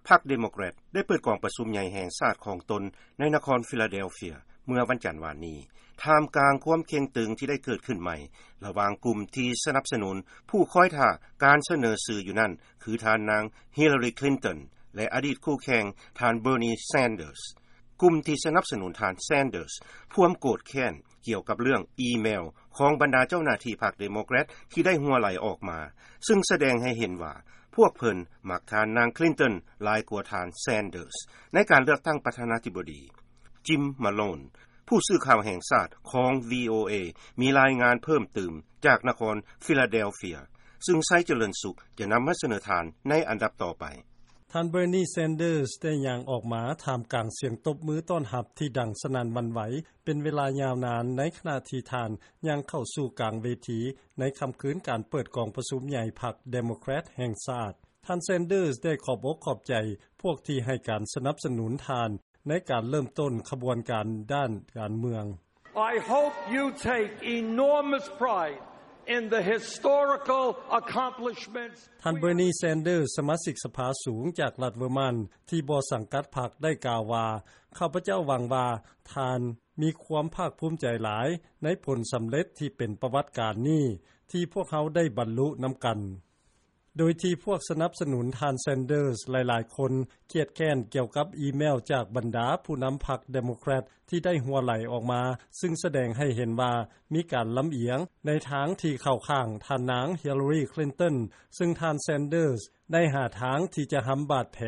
ພັກເດໂມແຄຣດໄດ້ເປີດກອງປະຊຸມໃຫຍ່ແຫ່ງຊາດຂອງຕົນໃນນະຄອນຟີລາເດລເຟຍເມື່ອວັນຈັນວານນີ້ ທ່າມກາງຄວາມເຄັ່ງຕຶງທີ່ໄດ້ເກີດຂຶ້ນໃໝ່ລະຫວ່າງກຸ່ມທີ່ສະໜັບສະໜູນຜູ້ຄອຍຖ້າການສະເໜີຊື່ຢູ່ນັ້ນ ຄືທ່ານນາງ Hillary Clinton ແລະ ອະດີດຄູ່ແຂ່ງທ່ານ Bernie Sanders. ກຸ່ມທີ່ສະໜັບສະໜູນທ່ານ Sanders ພວມໂກດແຄ້ນກ່ຽວກັບເລື່ອງອີເມວຂອງບັນດາເຈົ້າໜ້າທີ່ພັກເດໂມແຄຣດທີ່ໄດ້ຮົ່ວໄຫຼອອກມາ ຊຶ່ງສະແດງໃຫ້ເຫັນວ່າພວກເພິ່ນມັກທ່ານນາງ Clinton ຫຼາຍກວ່າທ່ານ Sanders ໃນການເລືອກຕັ້ງປະທານາທິບໍດີ. Jim Malone ຜູ້ສື່ຂ່າວແຫ່ງຊາດຂອງ VOA ມີລາຍງານເພີ່ມຕື່ມຈາກນະຄອນຟີລາເດລເຟຍ ຊຶ່ງໄຊຈະເລີນສຸກຈະນຳມາສະເໜີທ່ານໃນອັນດັບຕໍ່ໄປ. ທ່ານ Bernie Sanders ໄດ້ຍ່າງອອກມາທ່າມກາງສຽງຕົບມືຕ້ອນຮັບທີ່ດັງສະໜັ່ນຫວັ່ນໄຫວເປັນເວລາຍາວນານ ໃນຂະນະທີ່ທ່ານຍ່າງເຂົ້າສູ່ກາງເວທີໃນຄ່ຳຄືນການເປີດກອງປະຊຸມໃຫຍ່ພັກເດໂມແຄຣດແຫ່ງຊາດ. ທ່ານ Sanders ໄດ້ຂອບອົກຂອບໃຈພວກທີ່ໃຫ້ການສະໜັບສະໜູນທ່ານໃນການເລີ່ມຕົ້ນຂະບວນການດ້ານການເມືອງ. I hope you take enormous pride in the historical accomplishments. ທ່ານ Bernie Sanders ສະມາຊິກສະພາສູງຈາກລັດເວີມານ ທີ່ບໍ່ສັງກັດພັກ ໄດ້ກ່າວວ່າ, ຂ້າພະເຈົ້າຫວັງວ່າທ່ານມີຄວາມພາກພູມໃຈຫຼາຍໃນຜົນສຳເລັດທີ່ເປັນປະຫວັດການນີ້ ທີ່ພວກເຮົາໄດ້ບັນລຸນຳກັນ. ໂດຍທີ່ພວກສະໜັບສະໜູນທ່ານ Sanders ຫຼາຍໆຄົນຄຽດແຄ້ນກ່ຽວກັບອີເມວຈາກບັນດາຜູ້ນຳພັກເດໂມແຄຣດທີ່ໄດ້ຮົ່ວໄຫຼອອກມາ ຊຶ່ງສະແດງໃຫ້ເຫັນວ່າມີການລຳອຽງໃນທາງທີ່ເຂົ້າຂ້າງທ່ານນາງ Hillary Clinton ຊຶ່ງທ່ານ Sanders ໄດ້ຫາທາງທີ່ຈະຫຳບາດແຜ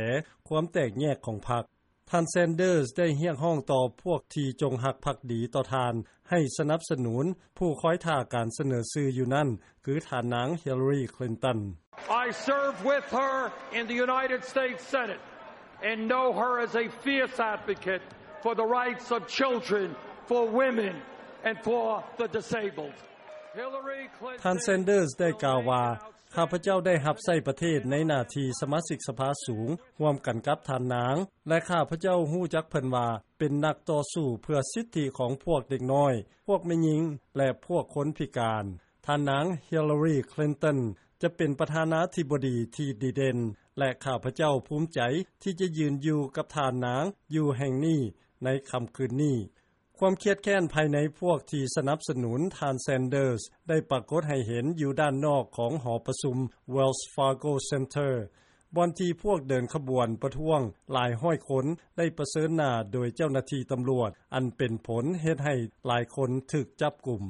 ຄວາມແຕກແຍກຂອງພັກ. ທ່ານ Sanders ໄດ້ຮຽກຮ້ອງຕໍ່ພວກທີ່ຈົງຮັກພັກດີຕໍ່ທ່ານ ໃຫ້ສະໜັບສະໜູນຜູ້ຄອຍຖ້າການສະເໜີຊື່ຢູ່ນັ້ນ ຄືທ່ານນາງ Hillary Clinton. I served with her in the United States Senate and know her as a fierce advocate for the rights of children, for women, and for the disabled. Hillary Clinton ທ່ານ Sanders ໄດ້ກ່າວວ່າ, ຂ້າພະເຈົ້າໄດ້ຮັບໃຊ້ປະເທດໃນໜ້າທີ່ສະມາຊິກສະພາສູງ ຮ່ວມກັນກັບທ່ານນາງ ແລະ ຂ້າພະເຈົ້າຮູ້ຈັກເພິ່ນວ່າເປັນນັກຕໍ່ສູ້ເພື່ອສິດທິຂອງພວກເດັກນ້ອຍ, ພວກແມ່ຍິງ ແລະ ພວກຄົນພິການ. ທ່ານນາງ Hillary Clinton ຈະເປັນປະທານາທິບໍດີທີ່ດີເດັ່ນ ແລະ ຂ້າພະເຈົ້າພູມໃຈທີ່ຈະຢືນຢູ່ກັບທ່ານນາງຢູ່ແຫ່ງນີ້ໃນຄ່ຳຄືນນີ້. ຄວາມຄຽດແຄ້ນພາຍໃນພວກທີ່ສະໜັບສະໜູນທ່ານ Sanders ໄດ້ປາກົດໃຫ້ເຫັນຢູ່ດ້ານນອກຂອງຫໍປະຊຸມ Wells Fargo Center ບ່ອນທີ່ພວກເດີນຂະບວນປະທ້ວງຫຼາຍຮ້ອຍຄົນໄດ້ປະເຊີນໜ້າໂດຍເຈົ້າໜ້າທີ່ຕຳຫຼວດ ອັນເປັນຜົນເຮັດໃຫ້ຫຼາຍຄົນຖືກຈັບກຸມ.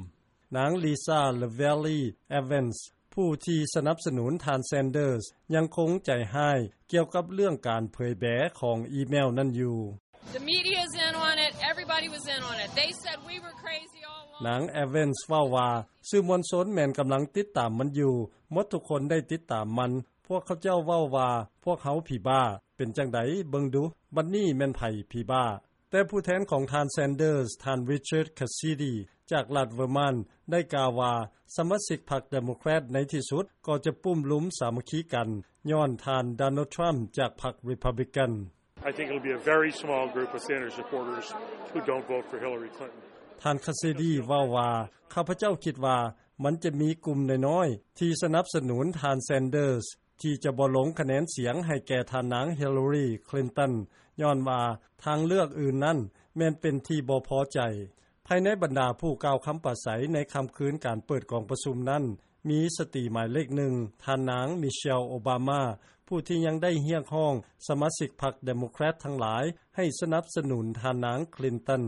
ນາງ Lisa Lavelle Evans ຜູ້ທີ່ສະໜັບສະໜູນທ່ານ Sanders ຍັງຄົງໃຈຮ້າຍກ່ຽວກັບເລື່ອງການເຜີຍແບຂອງອີເມວນັ້ນຢູ່. The media is in on it. Everybody was in on it. They said we were crazy all along. ນາງ Evans ເວົ້າວ່າ, ສື່ມວນຊົນແມ່ນກຳລັງຕິດຕາມມັນຢູ່. ໝົດທຸກຄົນໄດ້ຕິດຕາມມັນ. ພວກເຂົາເຈົ້າເວົ້າວ່າພວກເຮົາຜີບ້າ. ເປັນຈັ່ງໃດ? ເບິ່ງດູ, ບັດນີ້ແມ່ນໃຜຜີບ້າ? ແຕ່ຜູ້ແທນຂອງທ່ານ Sanders, ທ່ານ Richard Cassidy ຈາກລັດ Vermont ໄດ້ກ່າວວ່າ ສະມາຊິກພັກ Democrat ໃນທີ່ສຸດກໍຈະປຸ້ມລຸມສາມັກຄີກັນ ຍ້ອນທ່ານ Donald Trump ຈາກພັກ Republican. I think it'll be a very small group of Sanders supporters who don't vote for Hillary Clinton. ທ່ານ Cassidy ເວົ້າວ່າ, ຂ້າພະເຈົ້າຄິດວ່າມັນຈະມີກຸ່ມນ້ອຍໆທີ່ສະໜັບສະໜູນທ່ານ Sanders ທີ່ຈະບໍ່ລົງຄະແນນສຽງໃຫ້ແກ່ທ່ານນາງ Hillary Clinton ຍ້ອນວ່າທາງເລືອກອື່ນນັ້ນແມ່ນເປັນທີ່ບໍ່ພໍໃຈ. ພາຍໃນບັນດາຜູ້ກ່າວຄຳປາໄສໃນຄ່ຳຄືນການເປີດກອງປະຊຸມນັ້ນ ມີສະຕີໝາຍເລກໜຶ່ງ ທ່ານນາງ Michelle Obama ຜູ້ທີ່ຍັງໄດ້ຮຽກຮ້ອງສະມາຊິກພັກ Democrat ທັງຫຼາຍໃຫ້ສະໜັບສະໜູນທ່ານນາງ Clinton.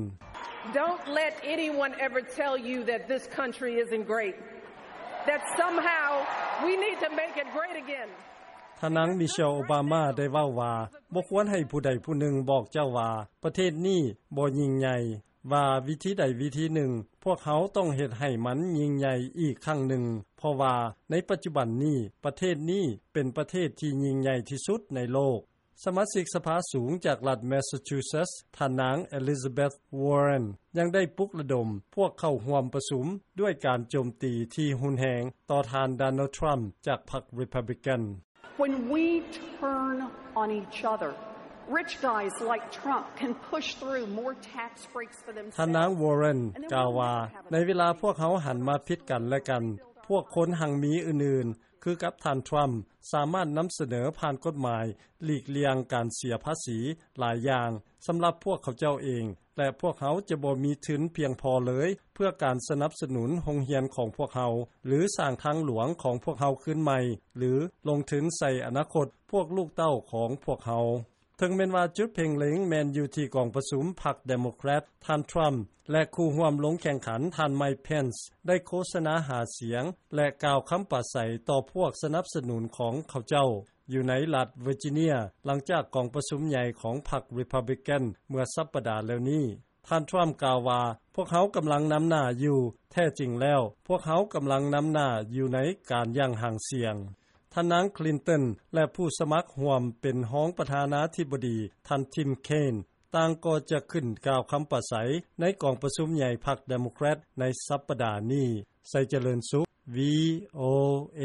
Don't let anyone ever tell you that this country isn't great, that somehow we need to make it great again. ທ່ານນາງ Michelle Obama ໄດ້ເວົ້າວ່າ, ບໍ່ຄວນໃຫ້ຜູ້ໃດຜູ້ໜຶ່ງບອກເຈົ້າວ່າປະເທດນີ້ບໍ່ຍິ່ງໃຫຍ່, ວ່າວິທີໃດວິທີໜຶ່ງ ພວກເຮົາຕ້ອງເຮັດໃຫ້ມັນຍິ່ງໃຫຍ່ອີກຄັ້ງໜຶ່ງ, ເພາະວ່າໃນປັດຈຸບັນນີ້ ປະເທດນີ້ເປັນປະເທດທີ່ຍິ່ງໃຫຍ່ທີ່ສຸດໃນໂລກ. ສະມາຊິກສະພາສູງຈາກລັດ Massachusetts ທ່ານນາງ Elizabeth Warren ຍັງໄດ້ປຸກລະດົມພວກເຂົ້າຮ່ວມປະຊຸມດ້ວຍການໂຈມຕີທີ່ຮຸນແຮງຕໍ່ທ່ານ Donald Trump ຈາກພັກ Republican. When we turn on each other, rich guys like Trump can push through more tax breaks for themselves. ທ່ານນາງ Warren ກ່າວວ່າ, ໃນເວລາພວກເຮົາຫັນມາຜິດກັນແລະກັນ, ພວກຄົນຮັ່ງມີອື່ນໆ ຄືກັບທ່ານ Trump ສາມາດນຳສະເໜີຜ່ານກົດໝາຍ ຫຼີກລ່ຽງການເສຍພາສີຫຼາຍຢ່າງ ສຳລັບພວກເຂົາເຈົ້າເອງ ແລະ ພວກເຮົາຈະບໍ່ມີທຶນພຽງພໍເລີຍ ເພື່ອການສະໜັບສະໜູນໂຮງຮຽນຂອງພວກເຮົາ ຫຼື ສ້າງທາງຫຼວງຂອງພວກເຮົາຄືນໃໝ່ ຫຼື ລົງທຶນໃສ່ອະນາຄົດ ພວກລູກເຕົ້າຂອງພວກເຮົາ. ເຖິງແມ່ນວ່າຈຸດເພັ່ງເລັງແມ່ນຢູ່ທີ່ກອງປະຊຸມພັກ Democrat ທ່ານ Trump ແລະ ຄູ່ຮ່ວມລົງແຂ່ງຂັນ ທ່ານ Mike Pence ໄດ້ໂຄສະນາຫາສຽງ ແລະ ກ່າວຄຳປາໄສຕໍ່ພວກສະໜັບສະໜູນຂອງເຂົາເຈົ້າ ຢູ່ໃນລັດ Virginia ຫຼັງຈາກກອງປະຊຸມໃຫຍ່ຂອງພັກ Republican ເມື່ອສັປດາແລ້ວນີ້. ທ່ານ Trump ກ່າວວ່າ ພວກເຮົາກຳລັງນຳໜ້າຢູ່ ແທ້ຈິງແລ້ວ ພວກເຮົາກຳລັງນຳໜ້າຢູ່ໃນການຢ່າງຫາງສຽງ. ທ່ານນາງ Clinton ແລະ ຜູ້ສະໝັກຮ່ວມເປັນຮອງປະທານາທິບໍດີ ທ່ານ Tim Kaine ຕ່າງກໍຈະຂຶ້ນກ່າວຄຳປາໄສ ໃນກອງປະຊຸມໃຫຍ່ພັກ Democrat ໃນສັປດານີ້. ໄຊຈະເລີນສຸກ VOA.